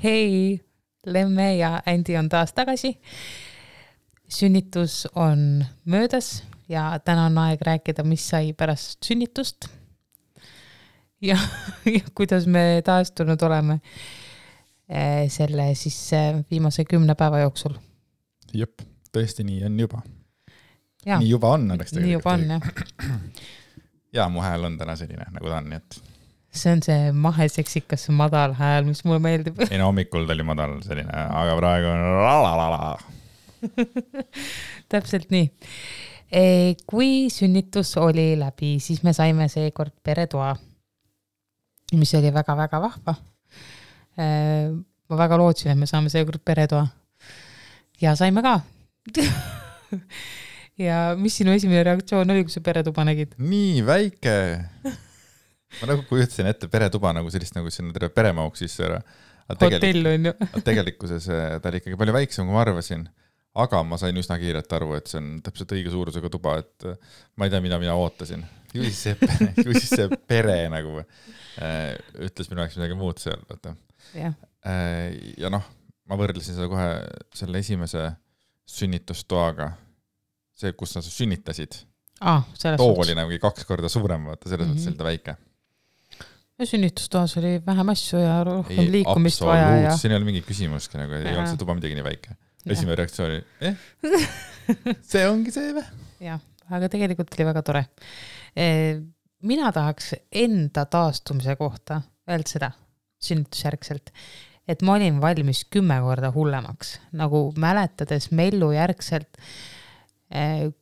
Hei, Lemme ja Andi on taas tagasi. Sünnitus on möödas ja täna on aeg rääkida, mis sai pärast sünnitust ja kuidas me taastunud oleme selle siis viimase 10 päeva jooksul. Jep, tõesti nii on juba. Ja, nii juba on. Nii juba on, jah. Ja mu hääl on täna selline, nagu ta on. Nii et... See on see maheseksikas madal hääl, mis mulle meeldib. Ei, no hommikul ta oli madal selline, aga praegu on lalalala. Täpselt nii. Kui sünnitus oli läbi, siis me saime seekord peretoa, mis oli väga-väga vahva. Ma väga lootsin, et me saame seekord peretoa. Ja saime ka. Ja mis sinu esimene reaktsioon oli, kui sa peretuba nägid? Nii väike. Ma nagu kujutasin ette peretuba nagu sellist, nagu sinna terve peremauk sisse ära. Hotell on ju. Tegelikkuses ta oli ikkagi palju väiksem, kui ma arvasin. Aga ma sain üsna kiirelt aru, et see on täpselt õige suurusega tuba, et ma ei tea, mida mina ootasin. Ju siis see pere nagu ütles minu aeg midagi muud seal. Ja. Ja noh, ma võrdlesin seda kohe selle esimese sünnitustoaga. See, kus sa sünnitasid. Too oli nagu 2 korda suurem, vaata, selles mõttes selline väike. Ja sünnitustoas oli vähem asju ja rohkem liikumist vaja. Ja... Siin ei ole mingi küsimuski, nagu ei olnud see tuba midagi nii väike. Esimene reaktsioon oli, see ongi see või? Jah, aga tegelikult oli väga tore. Mina tahaks enda taastumise kohta öelda seda sünnitusjärgselt, et ma olin valmis 10 korda hullemaks. Nagu mäletades mellu järgselt,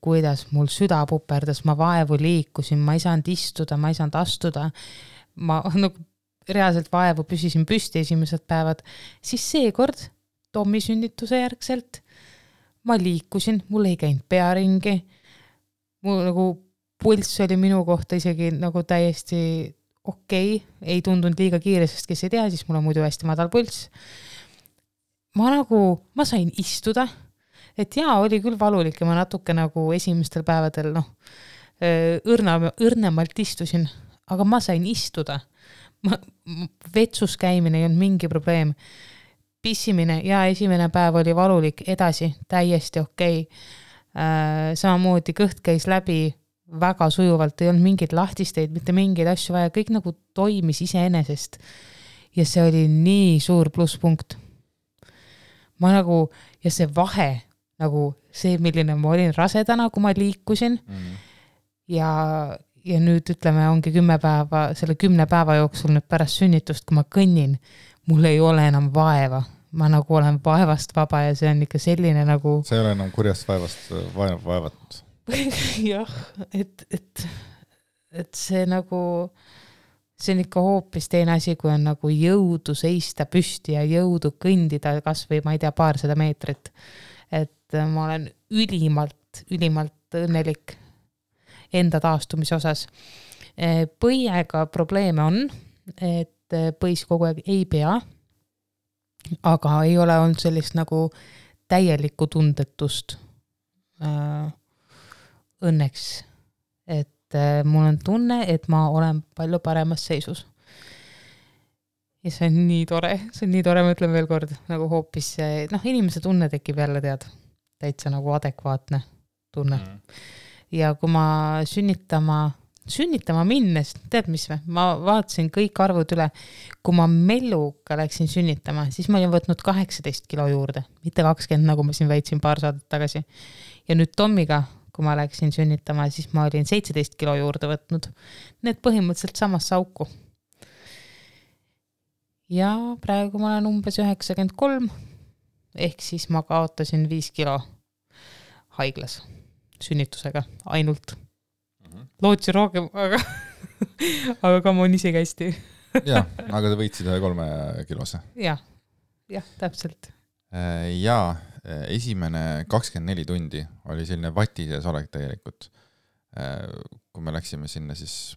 kuidas mul süda puperdas, ma vaevu liikusin, ma ei saanud istuda, ma ei saanud astuda. Ma nagu reaalselt vaevu püsisin püsti esimesed päevad. Siis seekord Tommi sünnituse järgselt ma liikusin, mul ei käinud pearingi. Mul nagu pulss oli minu kohta isegi nagu täiesti okei. Ei tundunud liiga kiire, sest kes ei tea, siis mul on muidu hästi madal pulss. Ma sain istuda. Et jaa, oli küll valulik ja ma natuke nagu esimestel päevadel õrnemalt istusin, aga ma sain istuda. Vetsus käimine ei olnud mingi probleem. Pissimine ja esimene päev oli valulik, edasi täiesti okei. Samamoodi kõht käis läbi väga sujuvalt, ei olnud mingeid lahtisteid, mitte mingeid asju vaja, kõik nagu toimis iseenesest. Ja see oli nii suur plusspunkt. Ma nagu, ja see vahe, nagu see, milline ma olin rasedana, kui ma liikusin ja nüüd ütleme, ongi 10 päeva, selle 10 päeva jooksul nüüd pärast sünnitust, kui ma kõnnin, mul ei ole enam vaeva. Ma nagu olen vaevast vaba ja see on ikka selline nagu... See ei ole enam kurjast vaevat. Jah, et see nagu... See on ikka hoopis teine asi, kui on nagu jõudu seista püsti ja jõudu kõndida kas või, ma ei tea, 200 meetrit. Et ma olen ülimalt õnnelik enda taastumise osas. Põiega probleeme on, et põis kogu aeg ei pea, aga ei ole olnud sellist nagu täielikku tundetust õnneks. Et mul on tunne, et ma olen palju paremas seisus. Ja see on nii tore, ma ütlen veel kord, nagu hoopis, inimese tunne tekib jälle täitsa nagu adekvaatne tunne. Ja kui ma sünnitama minnes, tead mis või? Ma vaatasin kõik arvud üle. Kui ma melluga läksin sünnitama, siis ma olin võtnud 18 kilo juurde, mitte 20, nagu ma siin väitsin paar saadet tagasi. Ja nüüd Tommiga, kui ma läksin sünnitama, siis ma olin 17 kilo juurde võtnud. Need põhimõtteliselt samas auku. Ja praegu ma olen umbes 93, ehk siis ma kaotasin 5 kilo haiglas sünnitusega ainult. Lootsin rohkem, aga ka ma on ise hästi. Ja, aga te võitsid 3 kilose. Jah, täpselt. Ja esimene 24 tundi oli selline vatises olek tegelikult, kui me läksime sinna siis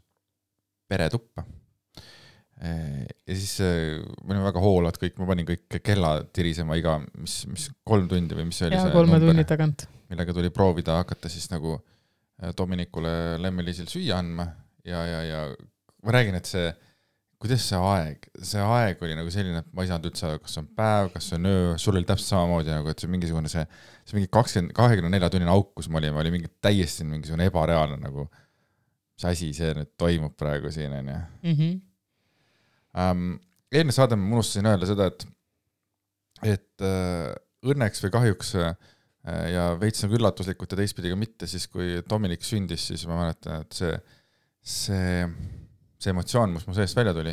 peretuppa. Ja siis me olime väga hoolad kõik, ma panin kõik kella tirisema iga, mis 3 tundi või mis oli ja, see 3 tunni tagant. Millega tuli proovida hakata siis nagu Dominikule Lemmeliisil süüa andma ja ma räägin, et see kuidas see aeg oli nagu selline, et ma ei saanud üldse, kas see on päev, kas see on öö, sul oli täpselt samamoodi nagu, et see mingisugune see mingi 24 tunnine auk, kus ma olin, oli mingi täiesti mingisugune ebareaalne nagu, mis asi see nüüd toimub praegu siin, on ju. Eelne saade ma unustasin öelda seda, et õnneks või kahjuks ja veits nagu üllatuslikult ja teistpidi ka mitte, siis kui Dominik sündis, siis ma mäletan, et see emotsioon, mis mu seest välja tuli,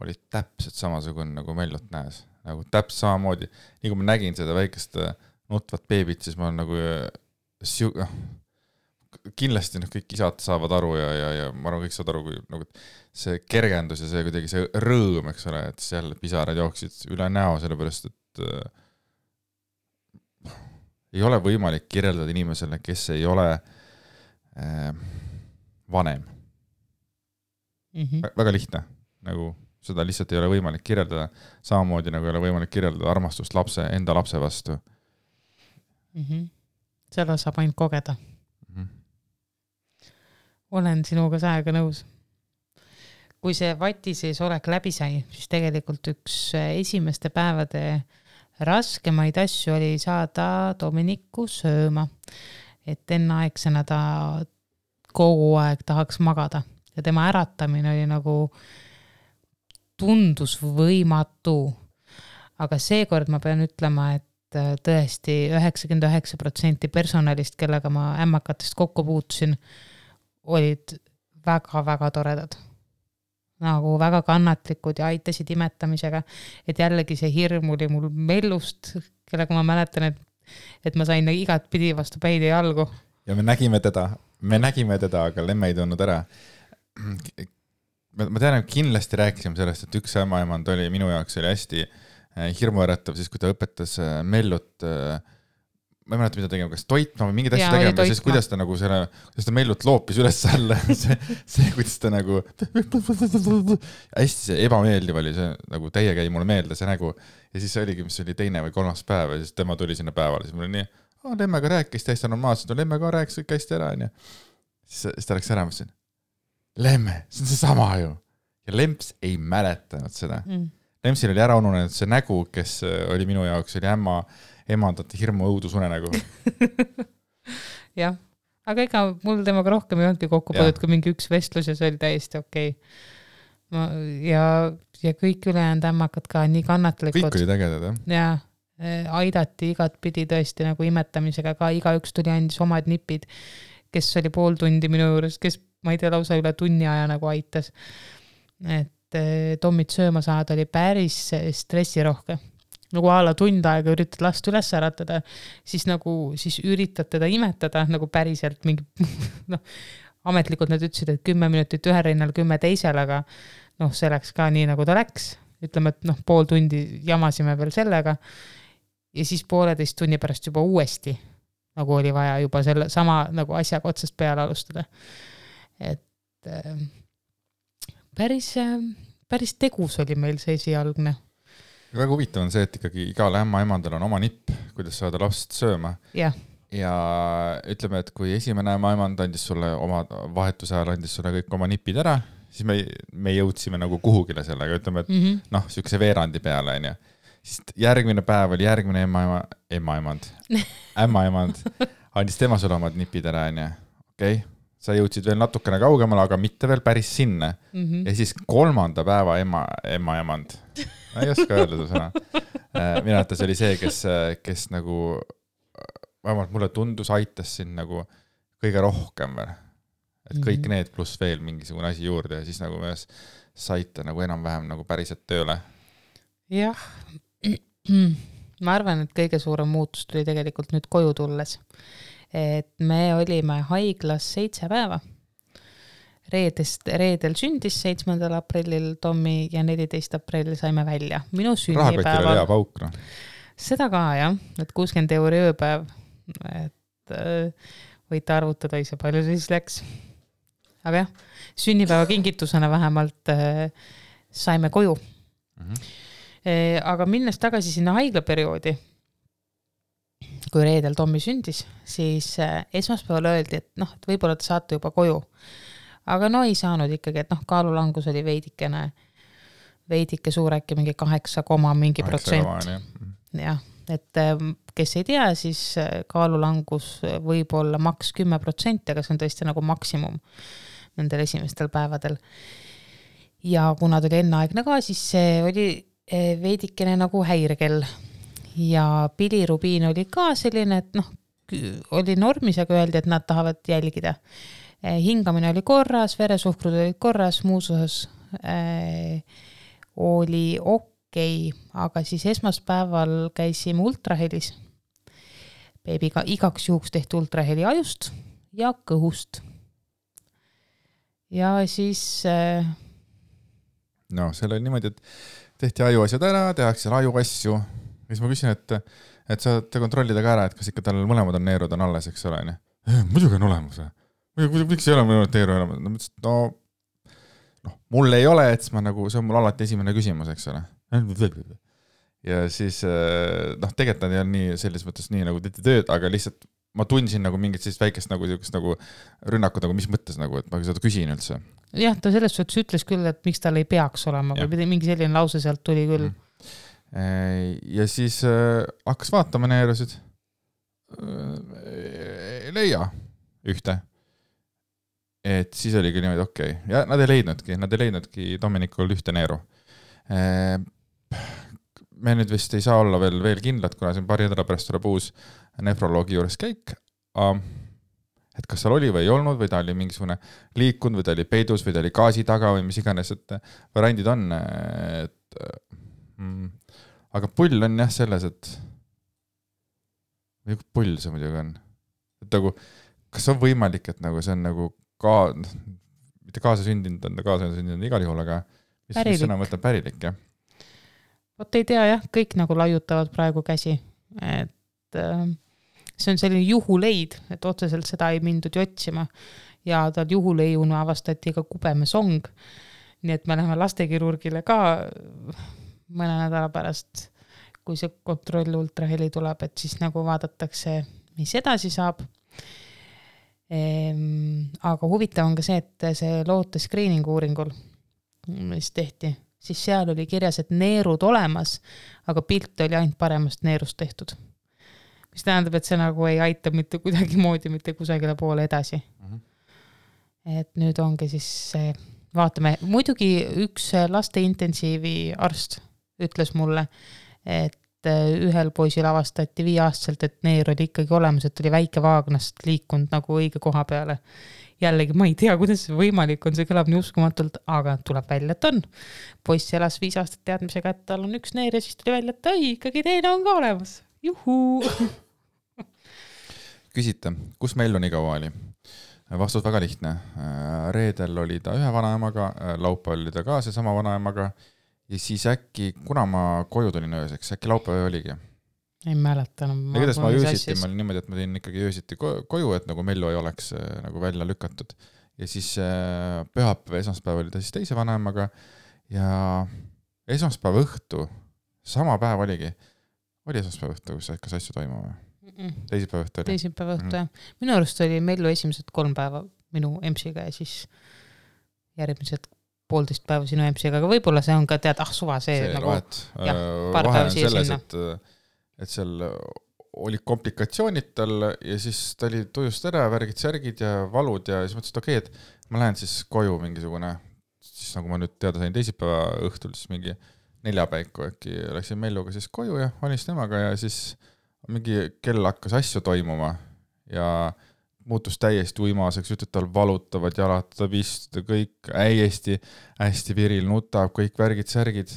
oli täpselt samasugune nagu Mellot näes. Nagu täpselt samamoodi. Nii kui ma nägin seda väikest nutvat beebit, siis ma olen nagu kindlasti kõik isad saavad aru ja ma arvan, kõik saavad aru, kui nagu see kergendus ja see kuidagi see rõõm, eks ole, et seal pisarad jooksid üle näo, sellepärast, et ei ole võimalik kirjeldada inimesele, kes ei ole vanem. Väga lihtne, nagu seda lihtsalt ei ole võimalik kirjeldada, samamoodi nagu ei ole võimalik kirjeldada armastust enda lapse vastu. Seda saab ainult kogeda. Olen sinuga saega nõus. Kui see vati sees olek läbi sai, siis tegelikult üks esimeste päevade raskemaid asju oli saada Dominiku sööma. Et enneaegsena ta kogu aeg tahaks magada. Ja tema äratamine oli nagu tundus võimatu. Aga seekord ma pean ütlema, et tõesti 99% personalist, kellega ma ämmakatest kokku puutusin, olid väga-väga toredad. Nagu väga kannatlikud ja aitasid imetamisega. Et jällegi see hirm oli mul Mellust, kellega ma mäletan, et ma sain igat pidi vastu päid ja jalgu. Ja me nägime teda, aga Lemme ei tulnud ära. Ma tean, et kindlasti rääkisime sellest, et üks ämmaemand oli minu jaoks oli hästi hirmuäratav, siis kui ta õpetas Mellut, ma ei mäleta, mida tegema, kas toitma või mingid asju tegema, siis kuidas ta nagu kuidas ta Mellut loopis üles alla, see kuidas ta nagu hästi see ebameeldiv oli, see nagu teie käi mulle meelde see nägu ja siis oligi, mis oli teine või kolmas päev ja siis tema tuli sinna päevale, siis mul oli nii, Lemmega rääkis täiesti normaalselt, Lemmega rääkis kõik hästi ära ja siis ta läks ära, mõtlesin, Lemme, see on see sama ju ja Lemps ei mäletanud seda. Lempsil oli ära ununenud see nägu, kes oli minu jaoks, oli emandate hirmu õudusunne nägu. Jah, aga ega mul temaga rohkem ei olnudki kokku põdud, kui mingi üks vestlus ja see oli täiesti okei. Ja kõik ülejäänud ämmakad ka nii kannatlikud. Kõik oli tegedad, jah? Ja aidati igat pidi tõesti nagu imetamisega ka, igaüks tuli andis omad nipid, kes oli pool tundi minu juures, kes ma ei tea, lausa üle tunni aja nagu aitas. Et Tommit sööma saada oli päris stressirohke. Nagu ala tund aega üritad last üles äratada, siis üritad teda imetada nagu päriselt mingi, ametlikult nad ütlesid, et 10 minutit ühe rinnal, 10 teisel, aga see läks ka nii, nagu ta läks. Ütleme, et pool tundi jamasime veel sellega ja siis 1,5 tunni pärast juba uuesti, nagu oli vaja juba selle sama nagu asjaga otsast peale alustada. Et päris tegus oli meil see esialgne. Väga huvitav on see, et ikkagi igal ämmaemandal on oma nipp, kuidas saada last sööma. Ja ütleme, et kui esimene ämmaemand andis sulle oma vahetuse ajal, andis sulle kõik oma nipid ära, siis me jõudsime nagu kuhugile sellega, ütleme, et sükse veerandi peale, on ju. Siis järgmine päev oli järgmine ämmaemand andis tema sulle omad nipid ära, on ju. Okei. Sa jõudsid veel natukene kaugemale, aga mitte veel päris sinna. Ja siis 3. päeva emmaemand. Ma ei oska öelda seda sõna. Minu arvates oli see, kes nagu, vähemalt mulle tundus, aitas siin nagu kõige rohkem veel. Et kõik need pluss veel mingisugune asi juurde ja siis nagu me saite nagu enam-vähem nagu päriselt tööle. Jah. Ma arvan, et kõige suurem muutus tuli tegelikult nüüd koju tulles. Et me olime haiglas 7 päeva. Reedel sündis 7. aprillil Tommi ja 14. aprillil saime välja. Minu sünnipäeval. Rahakotil oli hea pauk, no. Seda ka, jah. Et 60 € ööpäev. Et võite arvutada ise palju siis läks. Aga jah, sünnipäeva kingitusena vähemalt saime koju. Aga minnes tagasi sinna haiglaperioodi, kui reedel Tommi sündis, siis esmaspäeval öeldi, et võib-olla te saate juba koju. Aga ei saanud ikkagi, et kaalulangus oli veidikene veidike suur, äkki mingi 8, mingi protsent. Jah, et kes ei tea, siis kaalulangus võib olla maks 10%, aga see on tõesti nagu maksimum nendel esimestel päevadel. Ja kuna ta oli enneaegne ka, siis see oli veidikene nagu häirekell. Ja bilirubiin oli ka selline, et oli normis, aga öeldi, et nad tahavad jälgida. Hingamine oli korras, veresuhkrud olid korras, muus osas oli okei, aga siis esmaspäeval käisime ultrahelis. Beebiga igaks juhuks tehti ultraheli ajust ja kõhust. Ja siis... No, seal oli niimoodi, et tehti ajuasjad ära, tehakse ajuasju. Ja siis ma küsin, et saate kontrollida ka ära, et kas ikka tal mõlemad on neerud on alles, eks ole. Muidugi on olemas. Miks ei ole mõlemad neeru olemas? Mul ei ole, et ma nagu, see on mul alati esimene küsimus, eks ole. Ja siis, tegelikult nad ei ole nii selles mõttes nii nagu tehti tööd, aga lihtsalt ma tundsin nagu mingit sellist väikest nagu rünnakut, nagu mis mõttes nagu, et ma seda küsin üldse. Jah, ta selles suhtes ütles küll, et miks tal ei peaks olema, või mingi selline lause sealt tuli küll. Ja siis hakkas vaatama neerusid. Leia ühte. Et siis oligi niimoodi okei. Ja nad ei leidnudki Dominikul ühte neeru. Me nüüd vist ei saa olla veel kindlad, kuna siin paari nädala pärast tuleb uus nefroloogi juures käik. Et kas seal oli või ei olnud, või ta oli mingisugune liikunud, või ta oli peidus, või ta oli gaasi taga, või mis iganes, et variandid on. Aga pull on jah selles, et või pull see muidugi on. Et nagu, kas on võimalik, et nagu see on nagu mitte kaasasündinud, igal juhul, aga mis sõna võtab pärilik, jah? Vot ei tea, jah, kõik nagu laiutavad praegu käsi, et see on selline juhuleid, et otseselt seda ei mindud otsima ja tal juhuleiuna avastati ka kubemesong, nii et me läheme lastekirurgile ka mõne nädala pärast, kui see kontroll ultraheli tuleb, et siis nagu vaadatakse, mis edasi saab. Aga huvitav on ka see, et see loote screeningu uuringul, mis tehti, siis seal oli kirjas, et neerud olemas, aga pilt oli ainult paremast neerust tehtud. Mis tähendab, et see nagu ei aita mitte kuidagi moodi, mitte kusagile poole edasi. Et nüüd ongi siis vaatame, muidugi üks laste intensiivi arst ütles mulle, et ühel poisil avastati 5-aastaselt, et neer oli ikkagi olemas, et oli väike vaagnast liikunud nagu õige koha peale. Jällegi, ma ei tea, kuidas see võimalik on, see kõlab nii uskumatult, aga tuleb välja, et on. Poiss elas 5 aastat teadmisega, et tal on üks neer ja siis tuli välja, et ikkagi teine on ka olemas. Juhuu! Küsite, kus meil on igaua oli? Vastus väga lihtne. Reedel oli ta ühe vanaemaga, laupäeval oli ta ka seesama vanaemaga. Ja siis äkki, kuna ma koju tulin ööseks, äkki laupäev oligi? Ei mäleta. Kuidas ma öösiti, ma olin niimoodi, et ma tõin ikkagi öösiti koju, et nagu Mellu ei oleks nagu välja lükatud. Ja siis pühapäev, esmaspäev oli ta siis teise vanaemaga ja esmaspäev õhtu, sama päev oligi. Oli esmaspäev õhtu, kas asju toimub? Teisipäev õhtu oli? Teisipäev õhtu, jah. Minu arust oli Mellu esimesed 3 päeva minu emsiga ja siis järgmised 1,5 päeva sinu emsiga, aga võib-olla see on ka suva see nagu vahe on selles, et seal oli komplikatsioonid tal ja siis ta oli tujust ära, värgid, särgid ja valud ja siis mõtlesin, et okei, et ma lähen siis koju mingisugune, siis nagu ma nüüd teada sain teisipäeva õhtul, siis mingi 4 päiku äkki läksin Melluga siis koju ja olin siis temaga ja siis mingi kell hakkas asju toimuma ja muutus täiesti uimaseks, ütled tal valutavad jalad, ta pistud kõik hästi viril, nutab, kõik värgid, särgid.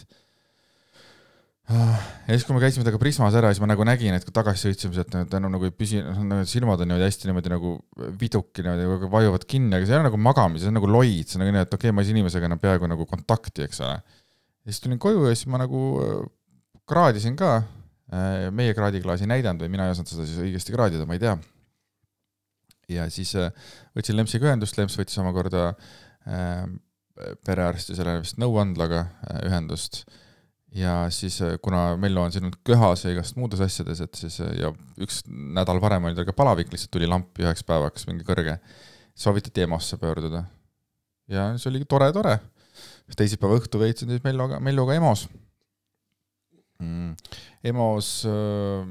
Ja siis, kui me käisime temaga Prismas ära, siis ma nagu nägin, et kui tagasi sõitsime, et ta enam nagu ei püsi, silmad on hästi niimoodi nagu viduki, niimoodi vajuvad kinni, aga see ei ole nagu magamis, see on nagu loid, see on nagu nii, et okei, ma ei saa inimesega enam peaaegu nagu kontakti, eks ole. Ja siis tulin koju ja siis ma nagu kraadisin ka, meie kraadiklaasi näidanud või mina ei osanud seda siis õigesti kraadida, ma ei tea. Ja siis võtsin Lempsiga ühendust, Lemps võttis omakorda perearsti selle vist nõuandlaga ühendust ja siis kuna Mellu on siin köhas ja igast muudes asjades, et siis ja üks nädal varem oli tal ka palavik, lihtsalt tuli lampi 1 päevaks mingi kõrge, soovitati EMO-sse pöörduda ja see oli tore. teisipäeva õhtu veetsin siis Melluga EMO-s. EMO-s,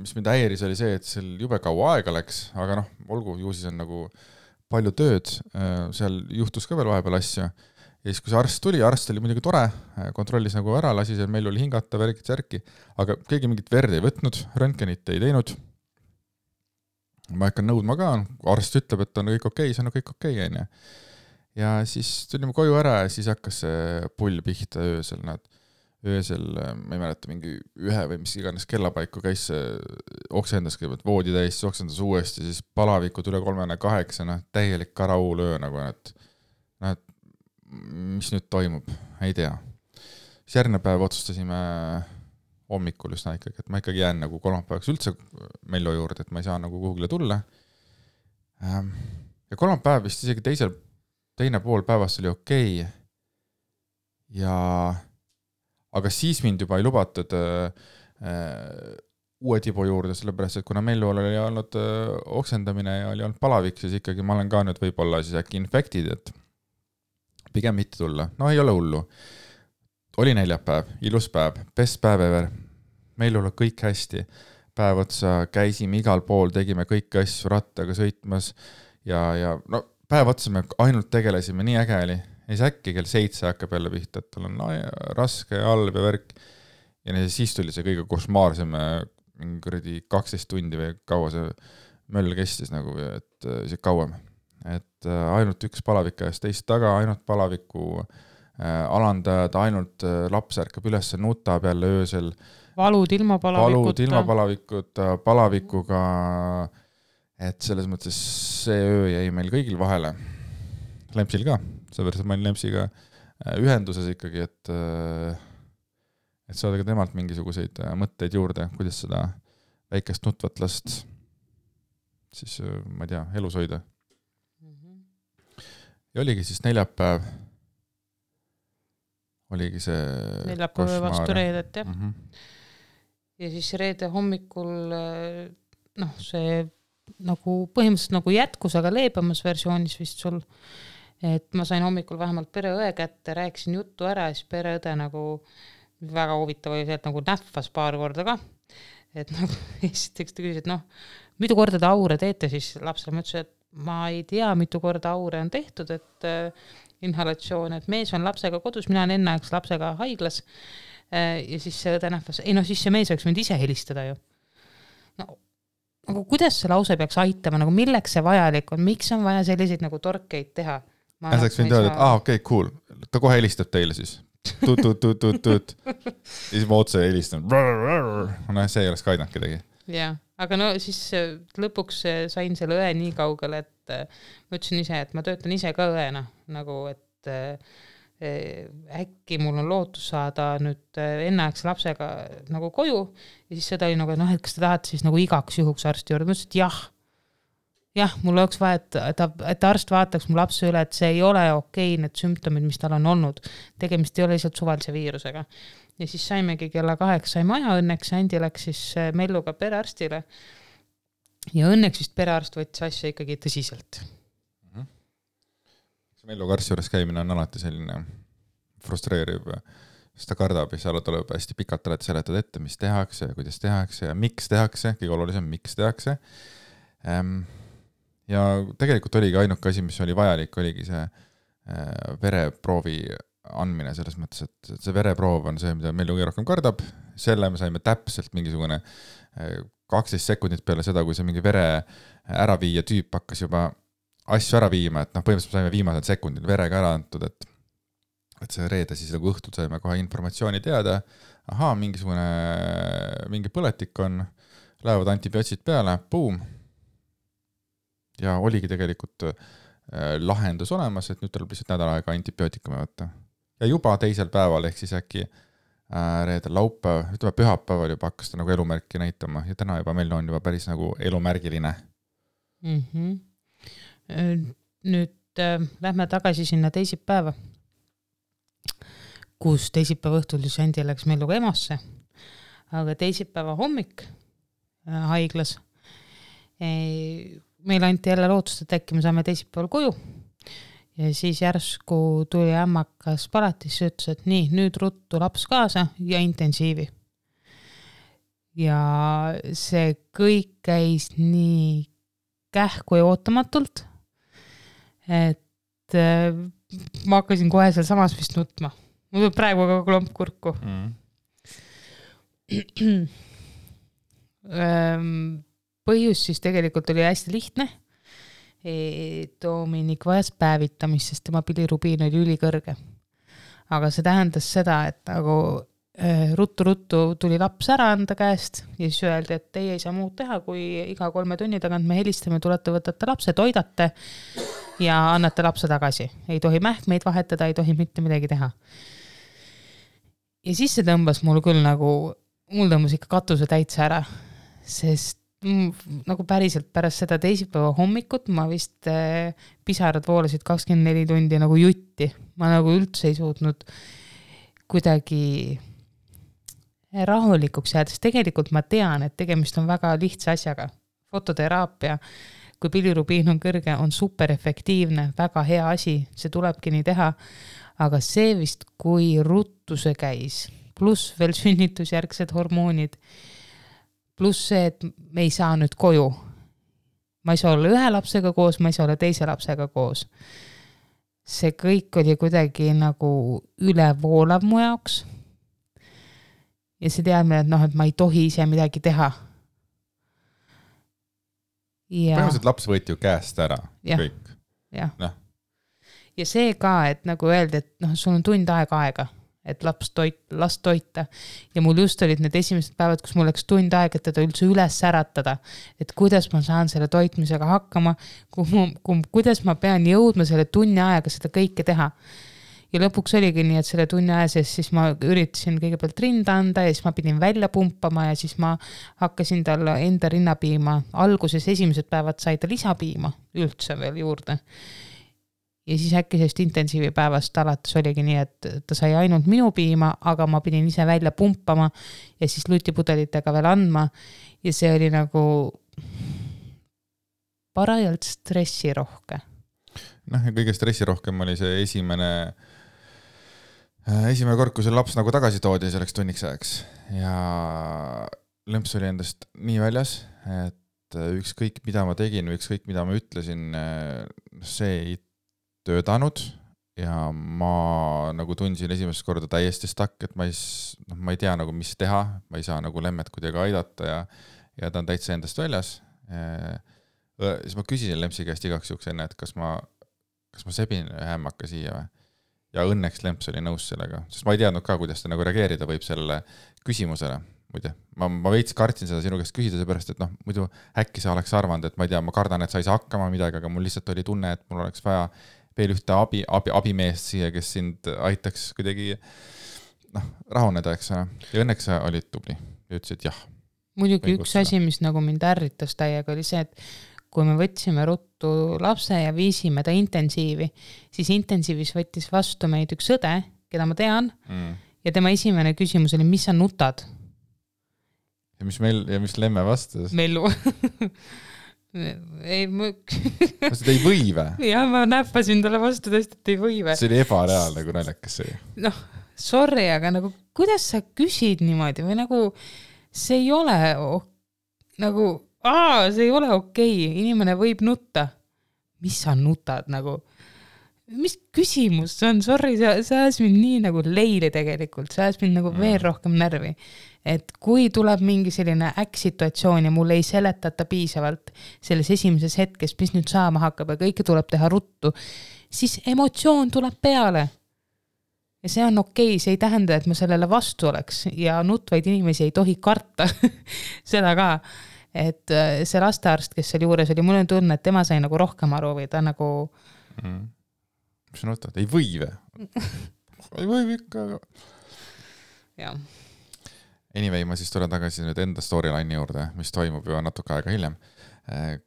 mis mind häiris, oli see, et seal jube kaua aega läks, aga noh, olgu, ju siis on nagu palju tööd, seal juhtus ka veel vahepeal asju. Ja siis, kui see arst oli muidugi tore, kontrollis nagu ära, lasi seal Mellul hingata, värki, aga keegi mingit verd ei võtnud, röntgenit ei teinud. Ma hakkan nõudma ka, arst ütleb, et on kõik okei, see on kõik okei, on ju. Ja siis tulime koju ära ja siis hakkas see pull pihta öösel, ma ei mäleta, mingi 1 või mis iganes kellapaiku käis see oksendas kõigepealt voodi täis, oksendas uuesti, siis palavikud üle 38, täielik karauul öö nagu, et mis nüüd toimub, ei tea. Siis järgmine päev otsustasime hommikul üsna ikkagi, et ma ikkagi jään nagu kolmapäevaks üldse Mello juurde, et ma ei saa nagu kuhugile tulla. Ja kolmapäev vist isegi teine pool päevast oli okei. Aga siis mind juba ei lubatud uue tibu juurde, sellepärast, et kuna Mellu oli olnud oksendamine ja oli olnud palavik, siis ikkagi ma olen ka nüüd võib-olla siis äkki infektid, et pigem mitte tulla. No ei ole hullu. Oli neljapäev, ilus päev, best päev ever. Mellul on kõik hästi. Päev otsa käisime igal pool, tegime kõiki asju rattaga sõitmas ja no päev otsa me ainult tegelesime, nii äge oli. Ja siis äkki kell 7 hakkab jälle pihta, et tal on raske ja halb ja värk. Ja siis tuli see kõige košmaarsem 12 tundi või kaua see möll kestis nagu, et see kauem. Et ainult üks palavik eest teist taga, ainult palaviku alandajad, ainult laps ärkab üles, nutab jälle öösel. Valud ilma palavikuga, et selles mõttes see öö jäi meil kõigil vahele. Lempsil ka, seepärast ma olin Lempsiga ühenduses ikkagi, et saada ka temalt mingisuguseid mõtteid juurde, kuidas seda väikest nutvat last siis, ma ei tea, elus hoida. Ja oligi siis neljapäev, oligi see neljapäev vastu reedet, jah. Ja siis reede hommikul see nagu põhimõtteliselt nagu jätkus, aga leebemas versioonis vist sul, et ma sain hommikul vähemalt pereõe kätte, rääkisin juttu ära ja siis pereõde nagu väga huvitav oli see, et nagu nähvas paar korda ka, et nagu esiteks ta küsis, et mitu korda te aure teete siis lapsele, ma ütlesin, et ma ei tea, mitu korda aure on tehtud, et inhalatsioon, et mees on lapsega kodus, mina olen enneaegs lapsega haiglas ja siis see õde nähvas, siis see mees oleks võinud ise helistada ju. Nagu kuidas see lause peaks aitama, nagu milleks see vajalik on, miks on vaja selliseid nagu torkeid teha? Saaks võinud öelda, et okei, cool, ta kohe helistab teile siis. Tut. Ja siis ma otse helistan. See ei oleks ka aidanud kedagi. Jah, aga siis lõpuks sain selle õe nii kaugele, et ma ütlesin ise, et ma töötan ise ka õena, nagu et äkki mul on lootus saada nüüd enneaegse lapsega nagu koju ja siis seda oli nagu, et kas te tahate siis nagu igaks juhuks arsti juurde, ma ütlesin, et jah, mul oleks vaja, et arst vaataks mu lapse üle, et see ei ole okei, need sümptomid, mis tal on olnud, tegemist ei ole lihtsalt suvalise viirusega. Ja siis saimegi kella 8 sai maja, õnneks Andi läks siis Melluga perearstile ja õnneks vist perearst võttis asja ikkagi tõsiselt. Melluga arsti juures käimine on alati selline frustreeriv, sest ta kardab ja seal tuleb hästi pikalt alati seletada ette, mis tehakse ja kuidas tehakse ja miks tehakse, kõige olulisem, miks tehakse. Ja tegelikult oligi ainuke asi, mis oli vajalik, oligi see vereproovi andmine selles mõttes, et see vereproov on see, mida Mellu kõige rohkem kardab, selle me saime täpselt mingisugune 12 sekundit peale seda, kui see mingi vere ära viia tüüp hakkas juba asju ära viima, et põhimõtteliselt saime viimased sekundid verega ära antud, et see reede siis nagu õhtul saime kohe informatsiooni teada, mingi põletik on, lähevad antibiootsid peale, boom. Ja oligi tegelikult lahendus olemas, et nüüd tuleb lihtsalt nädal aega antibiootikume võtta. Ja juba teisel päeval, ehk siis äkki reedel laupäev, ütleme pühapäeval juba hakkas ta nagu elumärki näitama ja täna juba meil on juba päris nagu elumärgiline. Nüüd lähme tagasi sinna teisipäeva, kus teisipäeva õhtul siis Andi läks Melluga EMO-sse, aga teisipäeva hommik haiglas meil anti jälle lootust, et äkki me saame teisipäeval koju ja siis järsku tuli ämmakas palatisse ja ütles, et nii, nüüd ruttu laps kaasa ja intensiivi. Ja see kõik käis nii kähku ja ootamatult, et ma hakkasin kohe seal samas vist nutma. Mul tuleb praegu ka klomp kurku. Põhjus siis tegelikult oli hästi lihtne. Dominik vajas päevitamist, sest tema bilirubiin oli ülikõrge. Aga see tähendas seda, et nagu ruttu tuli laps ära anda käest ja siis öeldi, et teie ei saa muud teha, kui iga 3 tunni tagant me helistame, tulete, võtate lapse, toidate ja annate lapse tagasi. Ei tohi mähkmeid vahetada, ei tohi mitte midagi teha. Ja siis see tõmbas mul küll nagu, mul tõmbas ikka katuse täitsa ära, sest nagu päriselt pärast seda teisipäeva hommikut ma vist pisarad voolasid 24 tundi nagu jutti. Ma nagu üldse ei suutnud kuidagi rahulikuks jäädes. Tegelikult ma tean, et tegemist on väga lihtsa asjaga. Fototeraapia, kui bilirubiin on kõrge, on super efektiivne, väga hea asi, see tulebki nii teha. Aga see vist, kui ruttuse käis, pluss veel sünnitusjärgsed hormoonid, pluss see, et me ei saa nüüd koju. Ma ei saa olla ühe lapsega koos, ma ei saa olla teise lapsega koos. See kõik oli kuidagi nagu ülevoolav mu jaoks. Ja see teadmine, et, et ma ei tohi ise midagi teha. Põhimõtteliselt laps võeti ju käest ära. Ja. Kõik. Ja. Ja see ka, et nagu öeldi, et sul on tund aega, et last toita. Ja mul just olid need esimesed päevad, kus mul läks tund aega, et teda üldse üles äratada. Et kuidas ma saan selle toitmisega hakkama, kuidas ma pean jõudma selle tunni aega seda kõike teha. Ja lõpuks oligi nii, et selle tunni aja sees siis ma üritasin kõigepealt rinda anda ja siis ma pidin välja pumpama ja siis ma hakkasin talle enda rinnapiima. Alguses esimesed päevad sai ta lisapiima üldse veel juurde. Ja siis äkki sellest intensiivi päevast alates oligi nii, et ta sai ainult minu piima, aga ma pidin ise välja pumpama ja siis lutipudelitega veel andma. Ja see oli nagu parajalt stressirohke. Ja kõige stressirohkem oli see esimene kord, kui see laps nagu tagasi toodi selleks tunniks ajaks. Ja lõmps oli endast nii väljas, et ükskõik mida ma tegin või ükskõik mida ma ütlesin, see ei töötanud ja ma nagu tundsin esimest korda täiesti stakk, et ma ei tea nagu mis teha, ma ei saa nagu lemmet kuidagi aidata ja ta on täitsa endast väljas. Siis ma küsisin Lempsi käest igaks juhuks enne, et kas ma sebin hämmaka siia või? Ja õnneks Lemps oli nõus sellega, sest ma ei teadnud ka, kuidas ta nagu reageerida võib sellele küsimusele. Muide, ma veits kartsin seda sinu käest küsida, seepärast, et muidu äkki sa oleks arvanud, et ma ei tea, ma kardan, et sa ei saa hakkama midagi, aga mul lihtsalt oli tunne, et mul oleks vaja veel ühte abimeest siia, kes sind aitaks kuidagi rahuneda, eks. Ja õnneks sa olid tubli ja ütlesid jah. Muidugi üks asi, mis nagu mind ärritas täiega, oli see, et kui me võtsime ruttu lapse ja viisime ta intensiivi, siis intensiivis võttis vastu meid üks õde, keda ma tean, ja tema esimene küsimus oli, mis sa nutad? Ja mis Lemme vastas? Mellu. Ei ei või või? Jah, ma näppasin talle vastu tõesti, et ei või või. See oli ebareaalne, kui naljakas see. Sorry, aga nagu, kuidas sa küsid niimoodi või nagu see ei ole see ei ole okei. Inimene võib nutta. Mis sa nutad nagu? Mis küsimus see on? Sorry, see ajas mind nii nagu leili tegelikult. See ajas mind nagu veel rohkem närvi. Et kui tuleb mingi selline äkksituatsioon ja mul ei seletata piisavalt selles esimeses hetkes, mis nüüd saama hakkab ja kõike tuleb teha ruttu, siis emotsioon tuleb peale. Ja see on okei, see ei tähenda, et ma sellele vastu oleks ja nutvaid inimesi ei tohi karta seda ka, et see lastearst, kes seal juures oli, mul on tunne, et tema sai nagu rohkem aru või ta nagu Mis sa nutad? Ei või või? Ei või ikka, aga jah. Anyway, ma siis tulen tagasi nüüd enda storyline'i juurde, mis toimub juba natuke aega hiljem.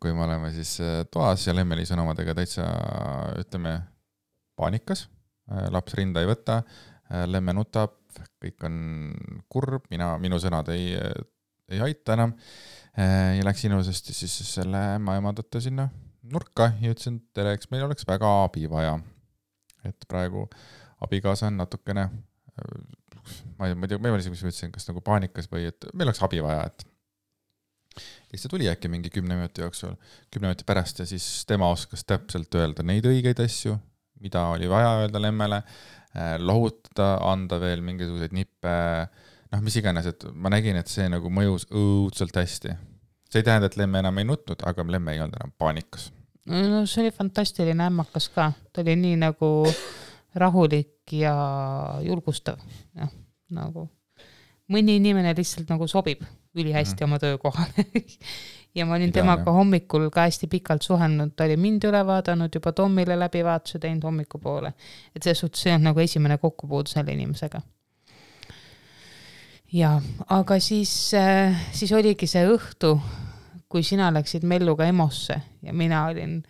Kui me oleme siis toas ja Lemmeli sõnumadega täitsa, ütleme, paanikas. Laps rinda ei võta, Lemme nutab, kõik on kurb, minu sõnad ei aita enam. Ja läks ilusasti siis selle ema tõtta sinna nurka ja ütlesin, tere, eks meil oleks väga abi vaja. et praegu abikaasa on natukene, ma ei tea, ma ei tea, mis ma ütlesin, kas nagu paanikas või et meil oleks abi vaja, et siis ta tuli äkki mingi 10 minuti jooksul, 10 minuti pärast ja siis tema oskas täpselt öelda neid õigeid asju, mida oli vaja öelda lemmele, lohutada, anda veel mingisuguseid nippe, noh, mis iganes, et ma nägin, et see nagu mõjus õudselt hästi. See ei tähenda, et lemme enam ei nutnud, aga lemme ei olnud enam paanikas. No see oli fantastiline ämmakas ka, ta oli nii nagu rahulik ja julgustav, jah, nagu mõni inimene lihtsalt nagu sobib ülihästi oma töökohale ja ma olin temaga hommikul ka hästi pikalt suhelnud, ta oli mind üle vaadanud, juba Tommile läbivaatuse teinud hommikupoole, et see suhtes see on nagu esimene kokkupuud selle inimesega. Ja, aga siis oligi see õhtu, kui sina läksid Melluga EMO-sse ja mina olin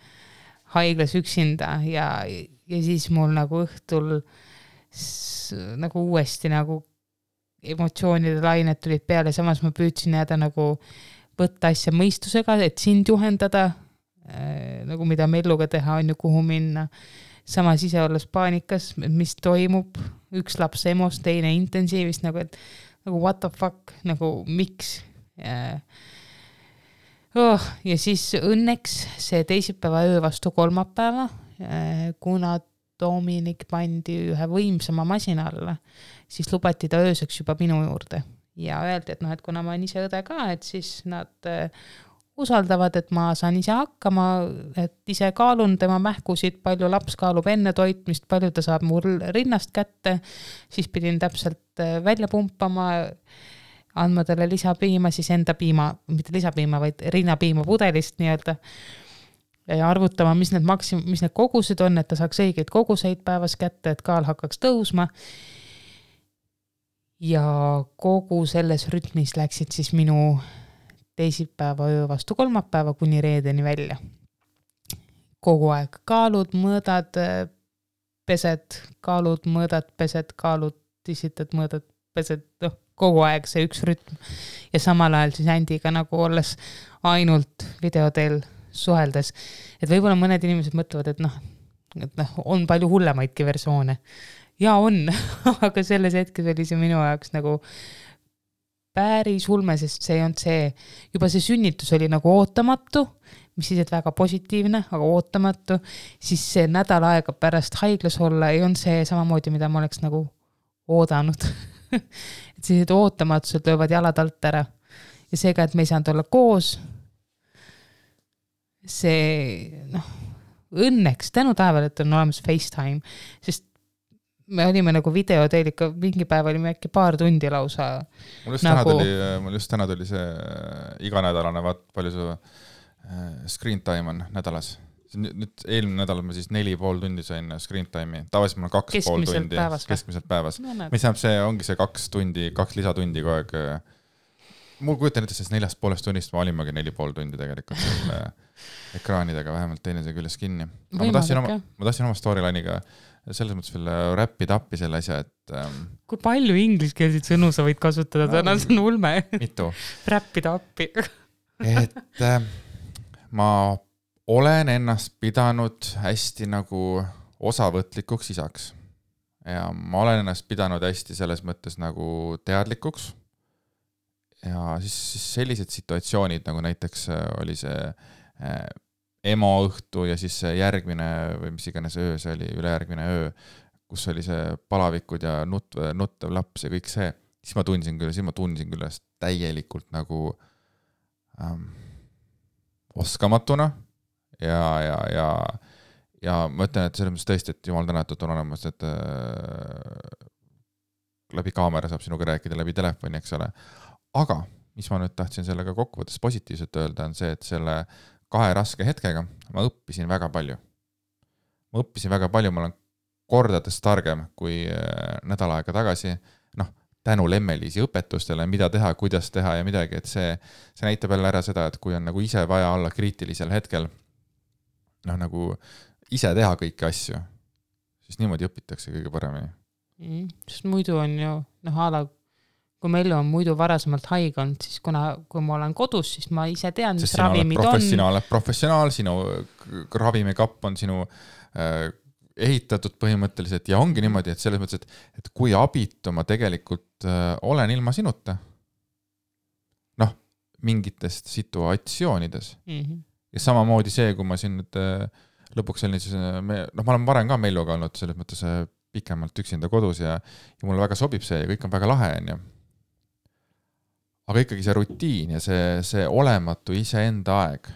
haiglas üksinda ja siis mul nagu õhtul nagu uuesti nagu emotsioonide lained tulid peale, samas ma püüdsin jääda nagu võtta asja mõistusega, et sind juhendada, nagu mida Melluga teha on ju, kuhu minna. Samas ise olles paanikas, mis toimub, üks laps EMO-s, teine intensiivist, nagu et nagu what the fuck, nagu miks. Ja siis õnneks see teisipäeva öö vastu kolmapäeva, kuna Dominik pandi ühe võimsama masina alla, siis lubati ta ööseks juba minu juurde ja öeldi, et noh, et kuna ma olen ise õde ka, et siis nad usaldavad, et ma saan ise hakkama, et ise kaalun tema mähkusid, palju laps kaalub enne toitmist, palju ta saab mul rinnast kätte, siis pidin täpselt välja pumpama, andma talle lisapiima, siis enda piima, mitte lisapiima, vaid rinnapiima pudelist nii-öelda, ja arvutama, mis need kogused on, et ta saaks õigeid koguseid päevas kätte, et kaal hakkaks tõusma. Ja kogu selles rütmis läksid siis minu teisipäeva öö vastu kolmapäeva kuni reedeni välja. Kogu aeg kaalud, mõõdad, pesed, kaalud, mõõdad, pesed, kaalud, tisitad, mõõdad, pesed, kogu aeg see üks rütm. Ja samal ajal siis Andiga nagu olles ainult videoteel suheldes, et võib-olla mõned inimesed mõtlevad, et on palju hullemaidki versioone. Ja on, aga selles hetkes oli see minu jaoks nagu päris ulme, sest see on see, juba see sünnitus oli nagu ootamatu, mis siis, et väga positiivne, aga ootamatu, siis see nädal aega pärast haiglas olla ei on see samamoodi, mida ma oleks nagu oodanud. Et siis, et ootamatused löövad jalad alt ära ja seega, et me ei saanud olla koos, see, õnneks tänu taevale, et on olemas FaceTime, sest me olime nagu videoteel ikka, mingi päev olime äkki paar tundi lausa. Mul just täna tuli see iganädalane, palju su screen time on nädalas. Nüüd eelmine nädal ma siis 4,5 tundi sain screen time'i. Tavaliselt mul on 2,5 tundi keskmiselt päevas. Mis tähendab, see ongi see 2 lisatundi kogu aeg. Mul kujutan ette, sest 4,5 tunnist ma olimagi 4,5 tundi tegelikult ekraanidega vähemalt teinemise küljes kinni. Ma tahtsin oma storyline'iga selles mõttes veel räppida appi selle asja, et kui palju ingliskeelseid sõnu sa võid kasutada, täna see on ulme. Mitu? Räppida appi. Et ma olen ennast pidanud hästi nagu osavõtlikuks isaks. Ja ma olen ennast pidanud hästi selles mõttes nagu teadlikuks. Ja siis sellised situatsioonid, nagu näiteks oli see EMO õhtu ja siis järgmine või mis iganes öö, see oli ülejärgmine öö, kus oli see palavikud ja nuttev laps ja kõik see, siis ma tundsin küll täielikult nagu oskamatuna ja ma ütlen, et selles mõttes tõesti, et jumal tänatud on olemas, et läbi kaamera saab sinuga rääkida läbi telefoni, eks ole. Aga mis ma nüüd tahtsin sellega kokkuvõttes positiivselt öelda, on see, et selle 2 raske hetkega ma õppisin väga palju. Ma olen kordades targem kui nädal aega tagasi, tänu Lemmeliisi õpetustele, mida teha, kuidas teha ja midagi, et see näitab jälle ära seda, et kui on nagu ise vaja olla kriitilisel hetkel, nagu ise teha kõiki asju, siis niimoodi õpitakse kõige paremini. Sest muidu on ju, kui meil on muidu varasemalt haige olnud, siis kui ma olen kodus, siis ma ise tean, mis ravimid on. Sina oled professionaal, sinu ravimikapp on sinu ehitatud põhimõtteliselt ja ongi niimoodi, et selles mõttes, et kui abitu ma tegelikult olen ilma sinuta, noh, mingitest situatsioonides. Ja samamoodi see, kui ma siin nüüd lõpuks olin, siis ma olen varem ka Melluga olnud selles mõttes pikemalt üksinda kodus ja mulle väga sobib see ja kõik on väga lahe, on ju. Aga ikkagi see rutiin ja see olematu iseenda aeg,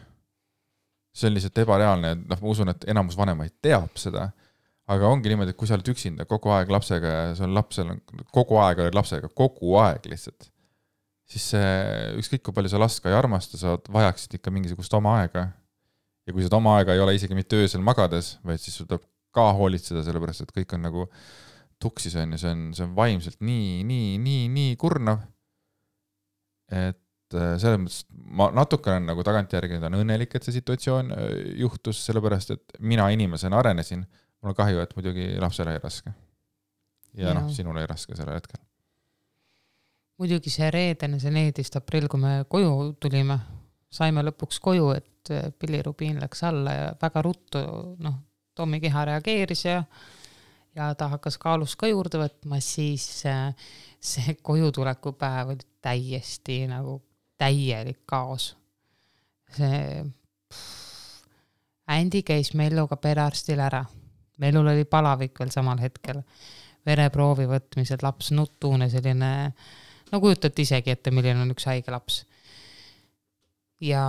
see on lihtsalt ebareaalne, noh, ma usun, et enamus vanemaid teab seda, aga ongi niimoodi, et kui sa oled üksinda kogu aeg lapsega ja sul lapsel on kogu aeg oled lapsega, kogu aeg lihtsalt, siis ükskõik kui palju sa last ka ei armasta, sa vajaksid ikka mingisugust oma aega. Ja kui seda oma aega ei ole isegi mitte öösel magades, vaid siis sul tuleb ka hoolitseda, sellepärast, et kõik on nagu tuksis on ja see on vaimselt nii kurnav, et selles mõttes ma natuke olen nagu tagantjärgi on õnnelik, et see situatsioon juhtus, sellepärast, et mina inimesena arenesin, mul on kahju, et muidugi lapsele ei raske. Ja noh, sinule ei raske selle hetkel. Muidugi see reedene, see 14. aprill, kui me koju tulime, saime lõpuks koju, et pillirubiin läks alla ja väga ruttu, noh, Tommi keha reageeris ja ta hakkas kaalust ka juurde võtma, siis see kojutuleku päev oli täiesti nagu täielik kaos. Andy käis Melluga perearstil ära. Mellul oli palavik veel samal hetkel. Vereproovi võtmised, laps nutune, selline, no kujutate isegi ette, milline on üks haige laps. Ja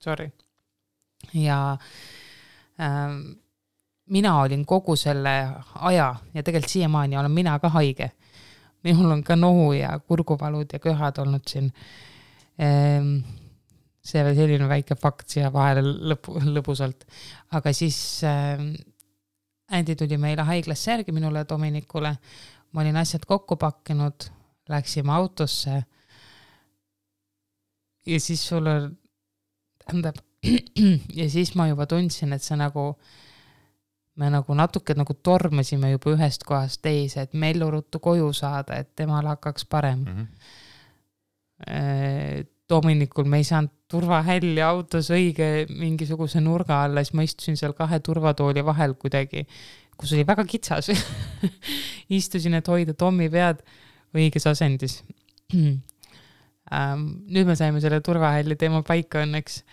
sorry. Ja mina olin kogu selle aja ja tegelikult siiamaani olen mina ka haige. Minul on ka nohu ja kurguvalud ja köhad olnud siin. See oli selline väike fakt siia vahele lõbusalt. Aga siis Andy tuli meile haiglasse järgi minule ja Dominikule. Ma olin asjad kokku pakkinud, läksime autosse ja siis sulle ja siis ma juba tundsin, et see nagu me nagu natuke nagu tormasime juba ühest kohast teise, et Mellu ruttu koju saada, et temal hakkaks parem. Dominikul me ei saanud turvahälli autos õige mingisuguse nurga alla, siis ma istusin seal 2 turvatooli vahel kuidagi, kus oli väga kitsas. Istusin, et hoida Tommi pead õiges asendis. Nüüd me saime selle turvahälli teema paika õnneks,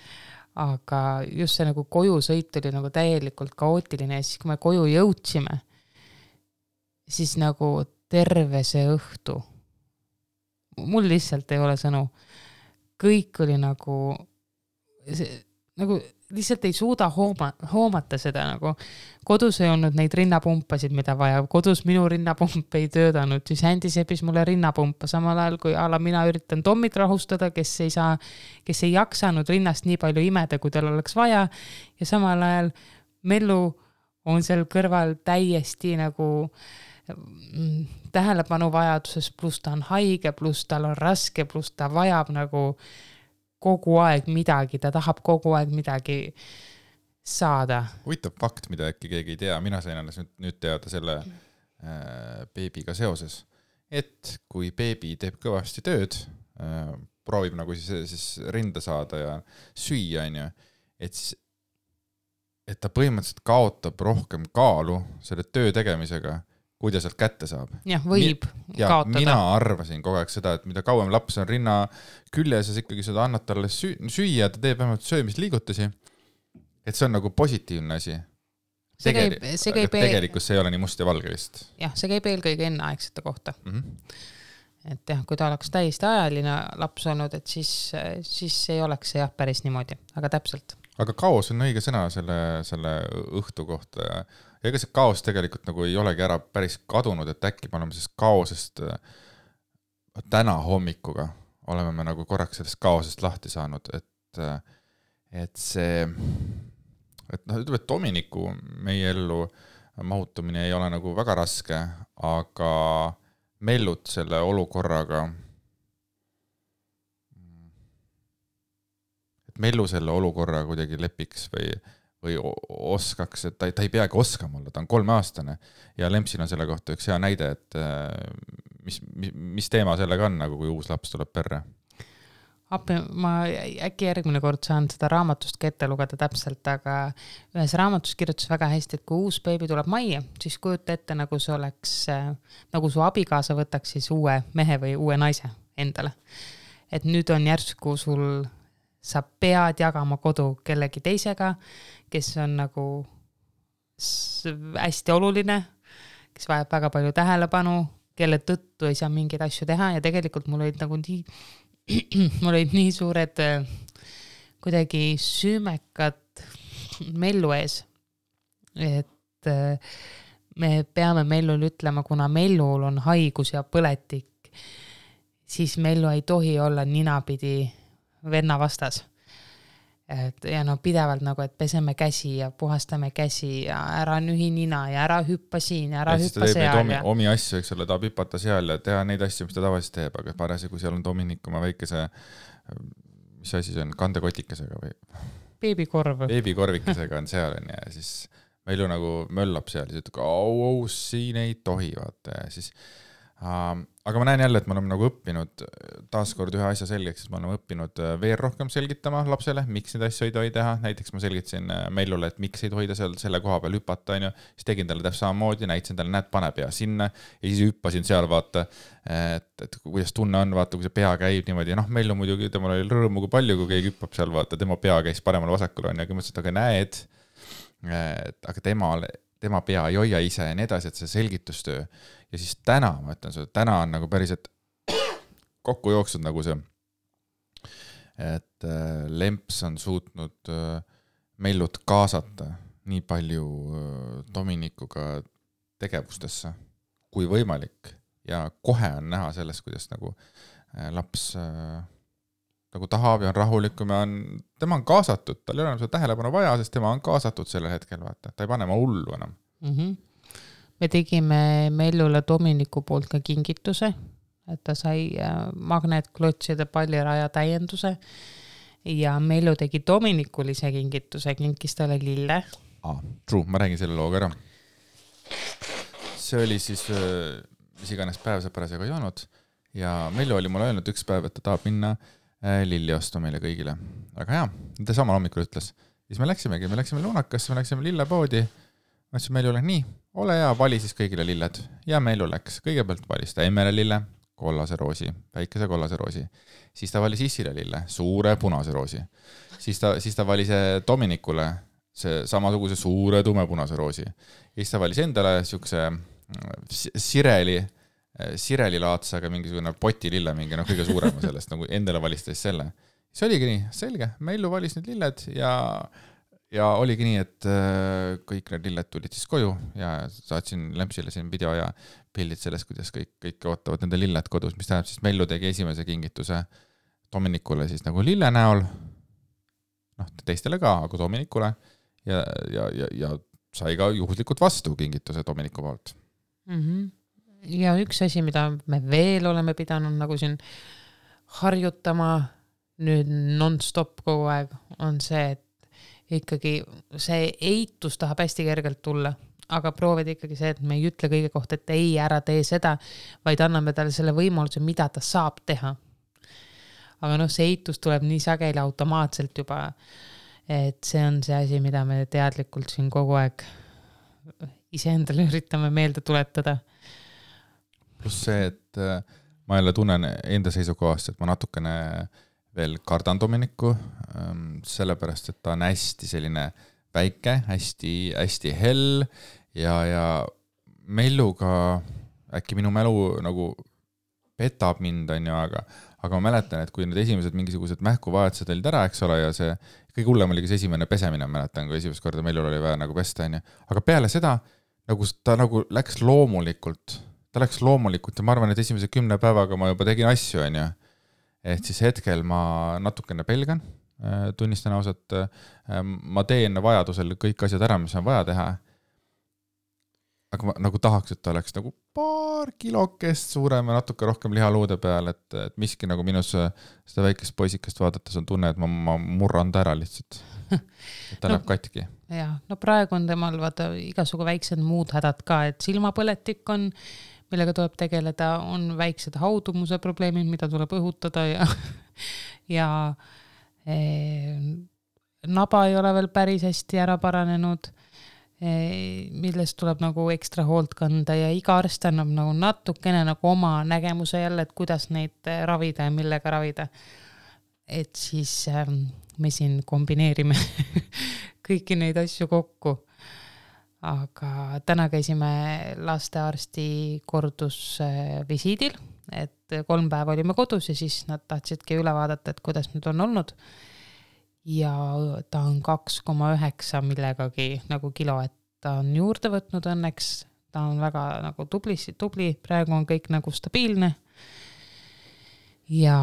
aga just see nagu koju sõit oli nagu täielikult kaootiline ja siis kui me koju jõudsime, siis nagu terve see õhtu, mul lihtsalt ei ole sõnu, kõik oli nagu lihtsalt ei suuda hoomata seda nagu. Kodus ei olnud neid rinnapumpasid, mida vaja. Kodus minu rinnapump ei töödanud. Siis Andy sepis mulle rinnapumpa samal ajal, kui mina üritan Tommit rahustada, kes ei jaksanud rinnast nii palju imeda, kui tal oleks vaja. Ja samal ajal Mellu on seal kõrval täiesti nagu tähelepanu vajaduses, pluss ta on haige, pluss tal on raske, pluss ta vajab nagu kogu aeg midagi, ta tahab kogu aeg midagi saada. Huvitav fakt, mida äkki keegi ei tea, mina sain alles nüüd teada selle beebiga seoses, et kui beebi teeb kõvasti tööd, proovib nagu siis rinda saada ja süüa, et ta põhimõtteliselt kaotab rohkem kaalu selle töö tegemisega, kui ta sealt kätte saab. Jah, võib kaotada. Mina arvasin kogu aeg seda, et mida kauem laps on rinna küljes, siis ikkagi seda annad talle süüa, ta teeb vähemalt söömisliigutusi. Et see on nagu positiivne asi. Tegelikult see ei ole nii must ja valge vist. Jah, see käib eelkõige enneaegsete kohta. Et jah, kui ta oleks täiesti ajaline laps olnud, et siis ei oleks see jah päris niimoodi, aga täpselt. Aga kaos on õige sõna selle õhtu kohta. Ja ega see kaos tegelikult nagu ei olegi ära päris kadunud, et äkki me oleme sellest kaosest täna hommikuga oleme me nagu korraks sellest kaosest lahti saanud, et see, et noh, ütleme, et Dominiku meie ellu mahutumine ei ole nagu väga raske, aga Mellut selle olukorraga, et Mellu selle olukorra kuidagi lepiks või oskaks, et ta ei peagi oskama olla, ta on 3-aastane ja Lempsil on selle kohta üks hea näide, et mis teema sellega on, nagu kui uus laps tuleb perre? appi, ma äkki järgmine kord saan seda raamatust ka ette lugeda täpselt, aga ühes raamatus kirjutas väga hästi, et kui uus beebi tuleb majja, siis kujuta ette, nagu see oleks, nagu su abikaasa võtaks siis uue mehe või uue naise endale. Et nüüd on järsku sul, sa pead jagama kodu kellegi teisega, kes on nagu hästi oluline, kes vajab väga palju tähelepanu, kelle tõttu ei saa mingeid asju teha ja tegelikult mul olid nagu mul olid nii suured kuidagi süümekad Mellu ees, et me peame Mellul ütlema, kuna Mellul on haigus ja põletik, siis Mellu ei tohi olla ninapidi venna vastas. Ja no pidevalt nagu, et peseme käsi ja puhastame käsi ja ära nühi nina ja ära hüppa siin ja ära hüppa seal. Omi asju, eks ole, tahab hüpata seal ja teha neid asju, mis ta tavaliselt teeb, aga parasi, kui seal on Dominik oma väikese, mis asi see on, kandekotikesega või? Beebikorvikesega on seal ja siis Mellu nagu möllab seal ja ütleb, au, siin ei tohi, vaata ja siis aga ma näen jälle, et me oleme nagu õppinud taaskord ühe asja selgeks, et me oleme õppinud veel rohkem selgitama lapsele, miks neid asju ei tohi teha. Näiteks ma selgitasin Mellule, et miks ei tohi ta selle koha peal hüpata, siis tegin talle täpselt samamoodi, näitasin talle, näed, pane pea sinna ja siis hüppasin seal, vaata, et kuidas tunne on, vaata, kui see pea käib niimoodi. Mellu muidugi, temal oli rõõmu kui palju, kui keegi hüppab seal, vaata, tema pea käis paremal vasakul on ja mõtlesin, et aga näed, aga tema pea ei hoia ise ja nii edasi, et see selgitustöö. Ja siis täna, ma ütlen sulle, täna on nagu päriselt kokku jooksnud nagu see, et Lemps on suutnud Mellut kaasata nii palju Dominikuga tegevustesse kui võimalik ja kohe on näha sellest, kuidas nagu laps nagu tahab ja on rahulikum ja tema on kaasatud, tal ei ole enam seda tähelepanu vaja, sest tema on kaasatud sellel hetkel, vaata, ta ei pane ma hullu enam. Me tegime Mellule Dominiku poolt ka kingituse, et ta sai magnetklotside palliraja täienduse ja Mellu tegi Dominikul ise kingituse, kinkis talle lille. True, ma räägin selle looga ära. See oli siis, mis iganes päev see parasjagu ei olnud ja Mellu oli mulle öelnud üks päev, et ta tahab minna lilli osta meile kõigile. Aga hea, ta samal hommikul ütles. Siis me läksimegi, me läksime Lunakasse, me läksime lillepoodi. Ma ütlesin Mellule, nii, ole hea, vali siis kõigile lilled. Ja Mellu läks. Kõigepealt valis ta Emmele lille, kollase roosi, väikese kollase roosi. Siis ta valis Issile lille, suure punase roosi. Siis ta valis Dominikule see samasuguse suure tumepunase roosi. Siis ta valis endale siukse Sireli laatsaga mingisugune poti lille, mingi kõige suurema sellest, nagu endale valis teist selle. See oligi nii, selge. Mellu valis need lilled ja oligi nii, et kõik need lilled tulid siis koju ja saatsin Lempsile siin video ja pildid sellest, kuidas kõik ootavad nende lilled kodus, mis tähendab siis Mellu tegi esimese kingituse Dominikule siis nagu lille näol, teistele ka, aga Dominikule ja sai ka juhuslikult vastu kingituse Dominiku poolt. Ja üks asi, mida me veel oleme pidanud nagu siin harjutama nüüd non-stop kogu aeg, on see, et ikkagi see eitus tahab hästi kergelt tulla, aga proovid ikkagi see, et me ei ütle kõige kohta, et ei, ära tee seda, vaid anname talle selle võimaluse, mida ta saab teha. Aga see eitus tuleb nii sageli automaatselt juba, et see on see asi, mida me teadlikult siin kogu aeg iseendale üritame meelde tuletada. Pluss see, et ma jälle tunnen enda seisukohast, et ma natukene veel kardan Dominiku, sellepärast, et ta on hästi selline väike, hästi hell ja Melluga äkki minu mälu nagu petab mind, on ju, aga ma mäletan, et kui need esimesed mingisugused mähkuvajadused olid ära, eks ole, ja see kõige hullem oli see esimene pesemine, mäletan, kui esimest korda Mellul oli vaja nagu pesta, on ju. Aga peale seda nagu ta nagu läks loomulikult ja ma arvan, et esimese 10 päevaga ma juba tegin asju, on ju. Et siis hetkel ma natukene pelgan, tunnistan ausalt, ma teen vajadusel kõik asjad ära, mis on vaja teha, aga ma nagu tahaks, et ta oleks nagu paar kilokest suurem ja natuke rohkem lihaluude peal, et miski nagu minus seda väikest poisikest vaadates on tunne, et ma murran ta ära lihtsalt, et ta läheb katki. Ja, praegu on temal vaata igasugu väiksed muud hädad ka, et silmapõletik on, millega tuleb tegeleda, on väiksed haudumuse probleemid, mida tuleb õhutada ja naba ei ole veel päris hästi ära paranenud, millest tuleb nagu ekstra hoolt kanda ja iga arst annab nagu natukene nagu oma nägemuse jälle, et kuidas neid ravida ja millega ravida. Et siis me siin kombineerime kõiki neid asju kokku. Aga täna käisime lastearsti kordusvisiidil, et 3 päeva olime kodus ja siis nad tahtsidki üle vaadata, et kuidas nüüd on olnud. Ja ta on 2,9 millegagi nagu kilo, et ta on juurde võtnud õnneks, ta on väga nagu tubli, praegu on kõik nagu stabiilne ja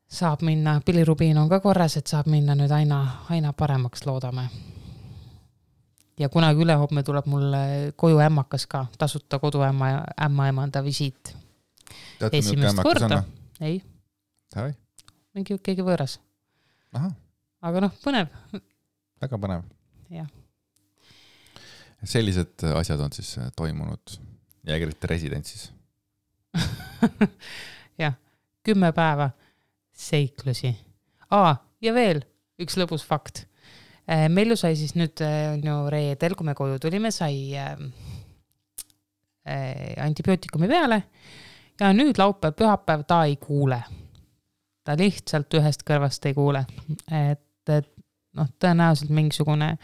saab minna, pilirubiin on ka korras, et saab minna nüüd aina paremaks, loodame. Ja kunagi ülehomme tuleb mulle koju ämmakas ka, tasuta koduämmaemanda visiit. Esimest korda. Ei. Sai? Mingi keegi võõras. Aha. Aga põnev. Väga põnev. Jah. Sellised asjad on siis toimunud Jägerite residentsis. Jah, 10 päeva seiklusi. Ja veel üks lõbus fakt. Mellu sai siis nüüd reedel, kui me koju tulime, sai antibiootikumi peale ja nüüd laupäev, pühapäev ta ei kuule. Ta lihtsalt ühest kõrvast ei kuule. Et tõenäoliselt mingisugune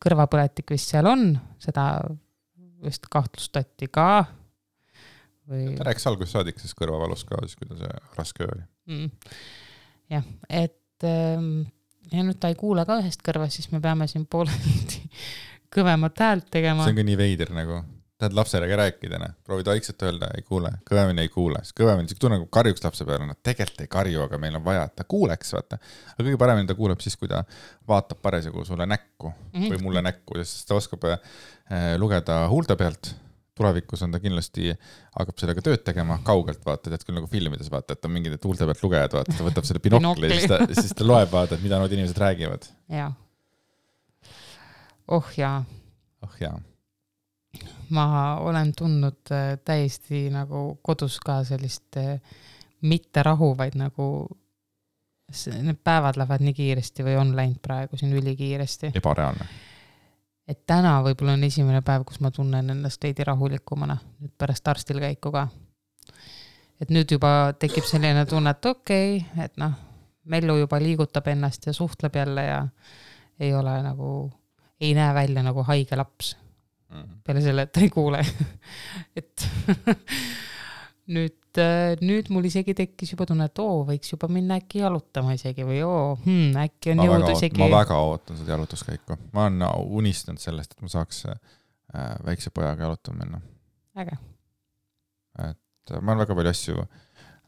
kõrvapõletik vist seal on, seda vist kahtlustati ka. Ta rääkis alguses saadik, siis kõrvavalus ka, siis kui ta see raske oli. Jah, et ja nüüd ta ei kuule ka ühest kõrvast, siis me peame siin pooleldi kõvemat häält tegema. See on ka nii veider nagu. Tahad lapsele rääkida, proovid vaikselt öelda, ei kuule, kõvemini ei kuule. Kõvemini, see tunne nagu karjuks lapse peale, nad tegelikult ei karju, aga meil on vaja, et ta kuuleks, vaata. Aga kõige paremini ta kuuleb siis, kui ta vaatab parasjagu sulle näkku või mulle näkku, sest ta oskab lugeda huulte pealt. Tulevikus on ta kindlasti, hakkab sellega tööd tegema kaugelt, vaata, tead küll nagu filmides vaata, et on mingid huulte pealt lugejad, vaata, ta võtab selle binokli ja siis ta loeb vaata, et mida nood inimesed räägivad. Ja. jaa. jaa. Ma olen tundnud täiesti nagu kodus ka sellist mitte rahu, vaid nagu need päevad lähevad nii kiiresti või on läinud praegu siin ülikiiresti. Ebareaalne. Et täna võib-olla on esimene päev, kus ma tunnen ennast veidi rahulikumana, nüüd pärast arstil käiku ka. Et nüüd juba tekib selline tunne, et okei, et Mellu juba liigutab ennast ja suhtleb jälle ja ei ole nagu, ei näe välja nagu haige laps. Peale selle, et ta ei kuule. Et nüüd mul isegi tekkis juba tunne, et võiks juba minna äkki jalutama isegi või äkki on jõudu isegi. Ma väga ootan seda jalutuskäiku. Ma olen unistanud sellest, et ma saaks väikse pojaga jalutama minna. Äge. Et ma olen väga palju asju,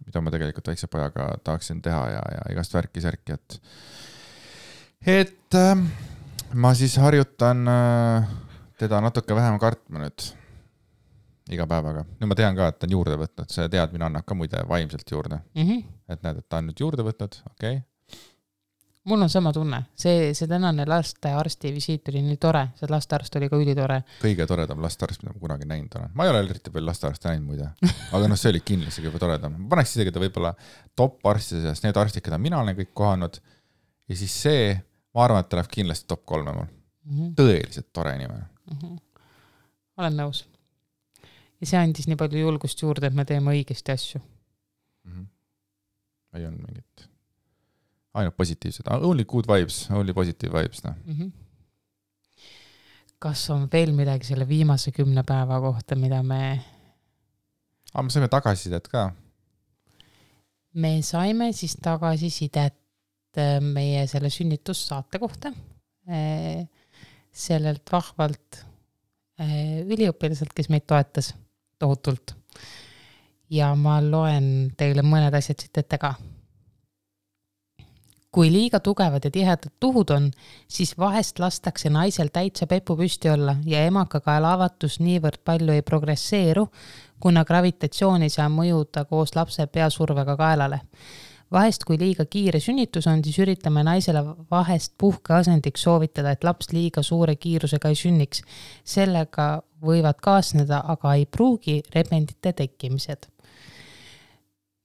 mida ma tegelikult väikse pojaga tahaksin teha ja igast värki-särki, et ma siis harjutan teda natuke vähem kartma nüüd iga päevaga. Nüüd ma tean ka, et ta on juurde võtnud. See teadmine annab ka muide vaimselt juurde. Et näed, et ta on nüüd juurde võtnud. Okay. Mul on sama tunne. See tänane lastearsti visiit oli nii tore. See lastearst oli ka ülitore. Kõige toredam lastearst, mida ma kunagi näinud olen. Ma ei ole eriti veel lastearsti näinud muide. Aga see oli kindlasti juba toredam. Ma paneks isegi ta võib-olla top arstide seas, need arstid, keda mina olen kõik kohanud. Ja siis see, ma arvan, et ta läheb kindlasti top 3 mul. Tõeliselt tore inimene. Olen nõus. Ja see andis nii palju julgust juurde, et me teeme õigesti asju. Ei on mingit ainult positiivsed. Only good vibes, only positive vibes. Kas on veel midagi selle viimase 10 päeva kohta, mida me saime tagasisidet ka. Me saime siis tagasisidet meie selle sünnitussaate kohta. Sellelt vahvalt üliõpilaselt, kes meid toetas tohutult. Ja ma loen teile mõned asjad siit ette ka. Kui liiga tugevad ja tihedad tuhud on, siis vahest lastakse naisel täitsa pepu püsti olla ja emakakaela avatus niivõrd palju ei progresseeru, kuna gravitatsioon ei saa mõjuda koos lapse peasurvega kaelale. Vahest, kui liiga kiire sünnitus on, siis üritame naisele vahest puhkeasendiks soovitada, et laps liiga suure kiirusega ei sünniks. Sellega võivad kaasneda, aga ei pruugi rebendite tekkimised.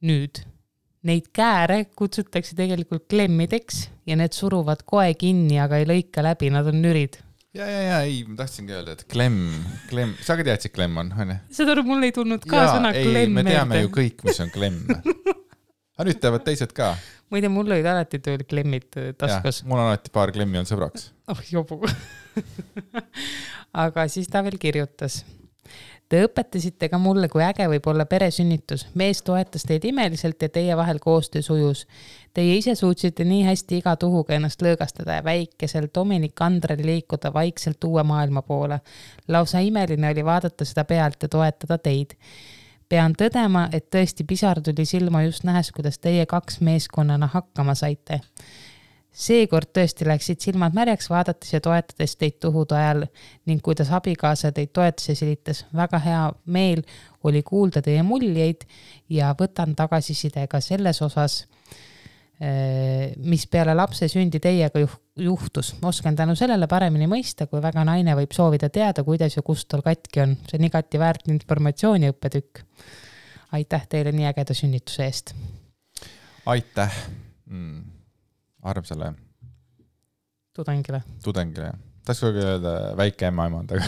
Nüüd, Neid kääre kutsutakse tegelikult klemmideks ja need suruvad koe kinni, aga ei lõika läbi, nad on nürid. Ja, ei, ma tahtsingi öelda, et klemm, sa ka teadsid, klemm on, on ju? Seda mul ei tulnud ka sõna klemm. Me teame ju kõik, mis on klemm. Aga nüüd teavad teised ka. Ma ei tea, mul olid alati tööl klemmid taskus. Ja, mul on alati paar klemmi on sõbraks. Jobu. Aga siis ta veel kirjutas. Te õpetasite ka mulle, kui äge võib olla peresünnitus. Mees toetas teid imeliselt ja teie vahel koostöö sujus. Teie ise suutsite nii hästi iga tuhuga ennast lõõgastada ja väikesel Dominik Andrel liikuda vaikselt uue maailma poole. Lausa imeline oli vaadata seda pealt ja toetada teid. Pean tõdema, et tõesti pisar tuli silma just nähes, kuidas teie 2 meeskonnana hakkama saite. Seekord tõesti läksid silmad märjaks vaadates ja toetades teid tuhude ajal ning kuidas abikaasa teid toetas ja silitas. Väga hea meel oli kuulda teie muljeid ja võtan tagasisidega selles osas, mis peale lapse sündi teiega juhtus. Oskan tänu sellele paremini mõista, kui väga naine võib soovida teada, kuidas ja kust tal katki on. See on igati väärt informatsiooni õppetükk. Aitäh teile nii ägeda sünnituse eest. Aitäh. Armsale tudengile. Tahaks kogu öelda väike emaemand, aga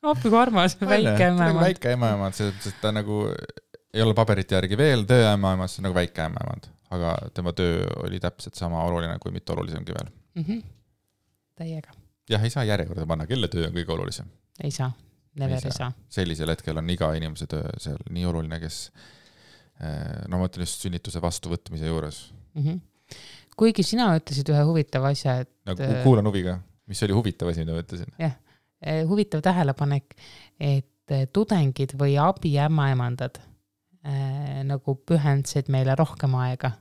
Appi kui armas, väike emaemand. Väike emaemand, sest ta nagu ei ole paberite järgi veel töö emaemand, see on nagu väike emaemand, aga tema töö oli täpselt sama oluline kui mitte olulisemgi veel. Täiega. Jah, ei saa järjekorda panna, kelle töö on kõige olulisem. Ei saa, never ei saa. Sellisel hetkel on iga inimese töö seal nii oluline, kes ma mõtlen just sünnituse vastuvõtmise juures. Kuigi sina ütlesid ühe huvitava asja, et... Nagu kuulan huviga, mis oli huvitav asi, mida ma ütlesin. Jah, huvitav tähelepanek, et tudengid või abiämmaemandad nagu pühendsid meile rohkem aega,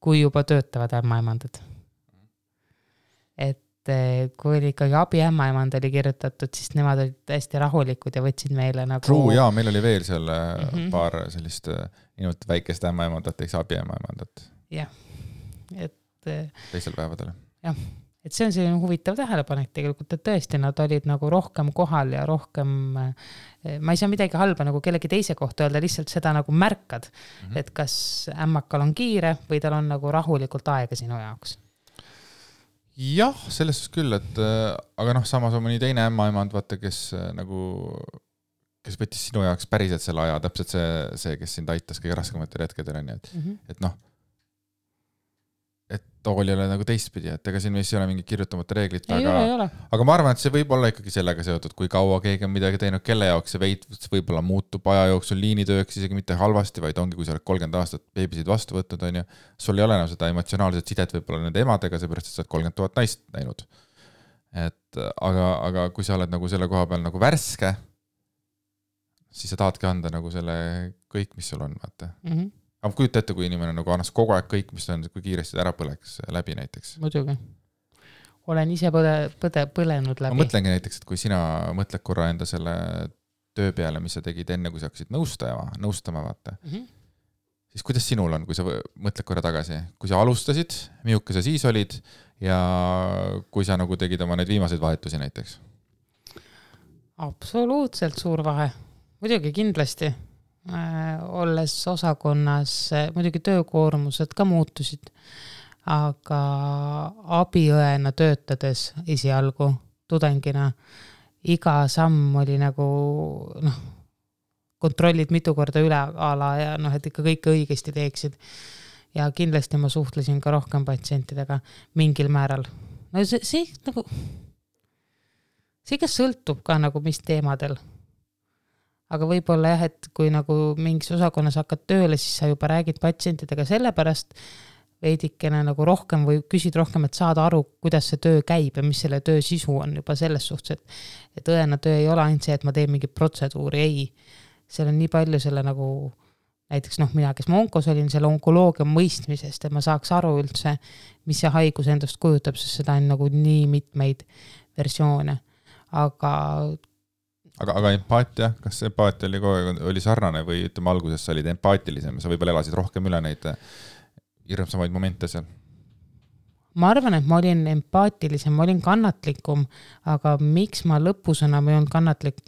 kui juba töötavad ämmaemandad. Et kui oli ikkagi abiämmaemand oli kirjutatud, siis nemad olid hästi rahulikud ja võtsid meile nagu... True, jaa, meil oli veel seal paar sellist inimelt väikest ämmaemandat, eks abiämmaemandat. Jah. Teisel päevadel. Jah, et see on selline huvitav tähelepanek tegelikult, et tõesti nad olid nagu rohkem kohal ja rohkem, ma ei saa midagi halba nagu kellegi teise kohta öelda, lihtsalt seda nagu märkad, et kas ämmakal on kiire või tal on nagu rahulikult aega sinu jaoks. Jah, selles küll, et aga samas on mõni teine ämmaemand, vaata, kes võttis sinu jaoks päriselt selle aja, täpselt see, kes sind aitas kõige raskematel hetkedel on, et et oli ole nagu teistpidi, et ega siin vist ei ole mingi kirjutamata reeglit, aga ma arvan, et see võib olla ikkagi sellega seotud, kui kaua keegi on midagi teinud, kelle jaoks see võib-olla muutub aja jooksul liinitööks isegi mitte halvasti, vaid ongi, kui sa oled 30 aastat beebisid vastu võtnud, on ju, sul ei ole enam seda emotsionaalset sidet võib-olla nende emadega, seepärast, et sa oled 30 000 naist näinud. Et, aga kui sa oled nagu selle koha peal nagu värske, siis sa tahadki anda nagu selle kõik, mis sul on, vaata. Aga kujuta ette, kui inimene nagu annas kogu aeg kõik, mis on, kui kiiresti ära põleks läbi näiteks. Muidugi. Olen ise põlenud läbi. Ma mõtlengi näiteks, et kui sina mõtled korra enda selle töö peale, mis sa tegid enne, kui sa hakkasid nõustama, vaata. Siis kuidas sinul on, kui sa mõtled korra tagasi? Kui sa alustasid, miuke sa siis olid ja kui sa nagu tegid oma need viimaseid vahetusi näiteks? Absoluutselt suur vahe. Muidugi kindlasti. Olles osakonnas, muidugi töökoormused ka muutusid, aga abiõena töötades esialgu tudengina iga samm oli nagu kontrollid mitu korda üle ala ja et ikka kõike õigesti teeksid. Ja kindlasti ma suhtlesin ka rohkem patsientidega mingil määral. No see ka sõltub ka nagu mis teemadel. Aga võib-olla jah, et kui nagu mingis osakonnas hakkad tööle, siis sa juba räägid patsientidega sellepärast veidikene nagu rohkem või küsid rohkem, et saada aru, kuidas see töö käib ja mis selle töö sisu on juba selles suhtes, et õena töö ei ole ainult see, et ma teen mingi protseduuri, ei. Seal on nii palju selle nagu, näiteks mina, kes ma onkos olin, selle onkoloogia mõistmisest, et ma saaks aru üldse, mis see haigus endast kujutab, sest seda on nagu nii mitmeid versioone. Aga empaatia, kas empaatia oli sarnane või ütleme alguses sa olid empaatilisem, sa võib-olla elasid rohkem üle neid hirmsamaid momente seal? Ma arvan, et ma olin empaatilisem, ma olin kannatlikum, aga miks ma lõpus enam ei olnud kannatlik,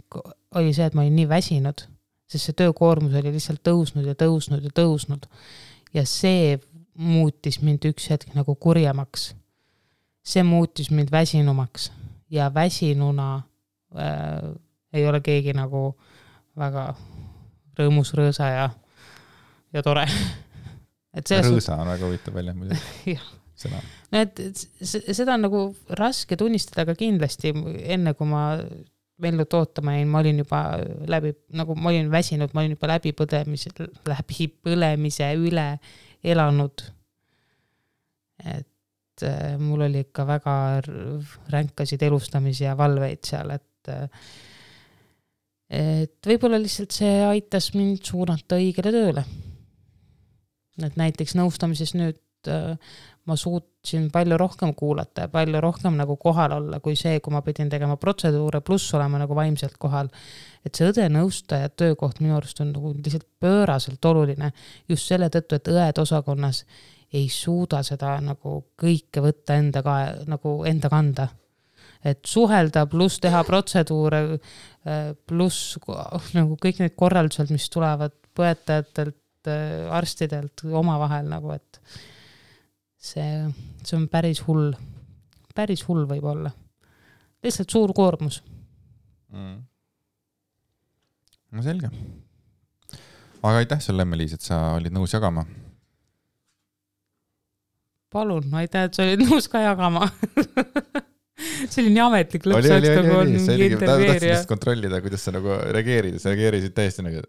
oli see, et ma olin nii väsinud. sest see töökoormus oli lihtsalt tõusnud ja tõusnud ja tõusnud. Ja see muutis mind üks hetk nagu kurjemaks. See muutis mind väsinumaks ja väsinuna ei ole keegi nagu väga rõõmus, rõõsa ja tore. Rõõsa on väga huvitav välja muidugi. Sõna. No, seda on nagu raske tunnistada, aga kindlasti enne kui ma Mellut ootama jäin, ma olin juba ma olin väsinud, ma olin juba läbipõlemise üle elanud. Et mul oli ikka väga ränkasid elustamisi ja valveid seal, et võib-olla lihtsalt see aitas mind suunata õigele tööle. Et näiteks nõustamises nüüd ma suutsin palju rohkem kuulata ja palju rohkem nagu kohal olla kui see, kui ma pidin tegema protseduure pluss olema nagu vaimselt kohal. Et see õde-nõustaja töökoht minu arust on nagu lihtsalt pööraselt oluline just selle tõttu, et õed osakonnas ei suuda seda nagu kõike võtta nagu enda kanda. Et suhelda pluss teha protseduure pluss nagu kõik need korraldused, mis tulevad põetajatelt, arstidelt omavahel nagu, et see on päris hull võib olla. Lihtsalt suur koormus. No selge. Aga aitäh sulle, Emme-Liis, et sa olid nõus jagama. Palun, aitäh, et sa olid nõus ka jagama. See oli nii ametlik lõpsaks nagu on mingi intervjueerija. Tahtsin kontrollida, kuidas sa nagu reageerid. Sa reageerisid täiesti nagu,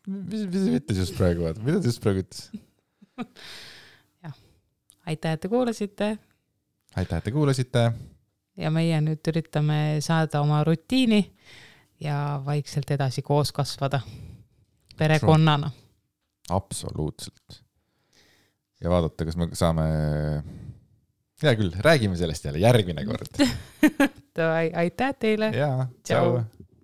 mis ütles just praegu? Mida ta just praegu ütles? Aitäh, et te kuulasite. Aitäh, et te kuulasite. Ja meie nüüd üritame saada oma rutiini ja vaikselt edasi koos kasvada. Perekonnana. Absoluutselt. Ja vaadata, kas me saame... Hea küll, räägime sellest jälle järgmine kord. Aitäh teile. Jaa, tšau.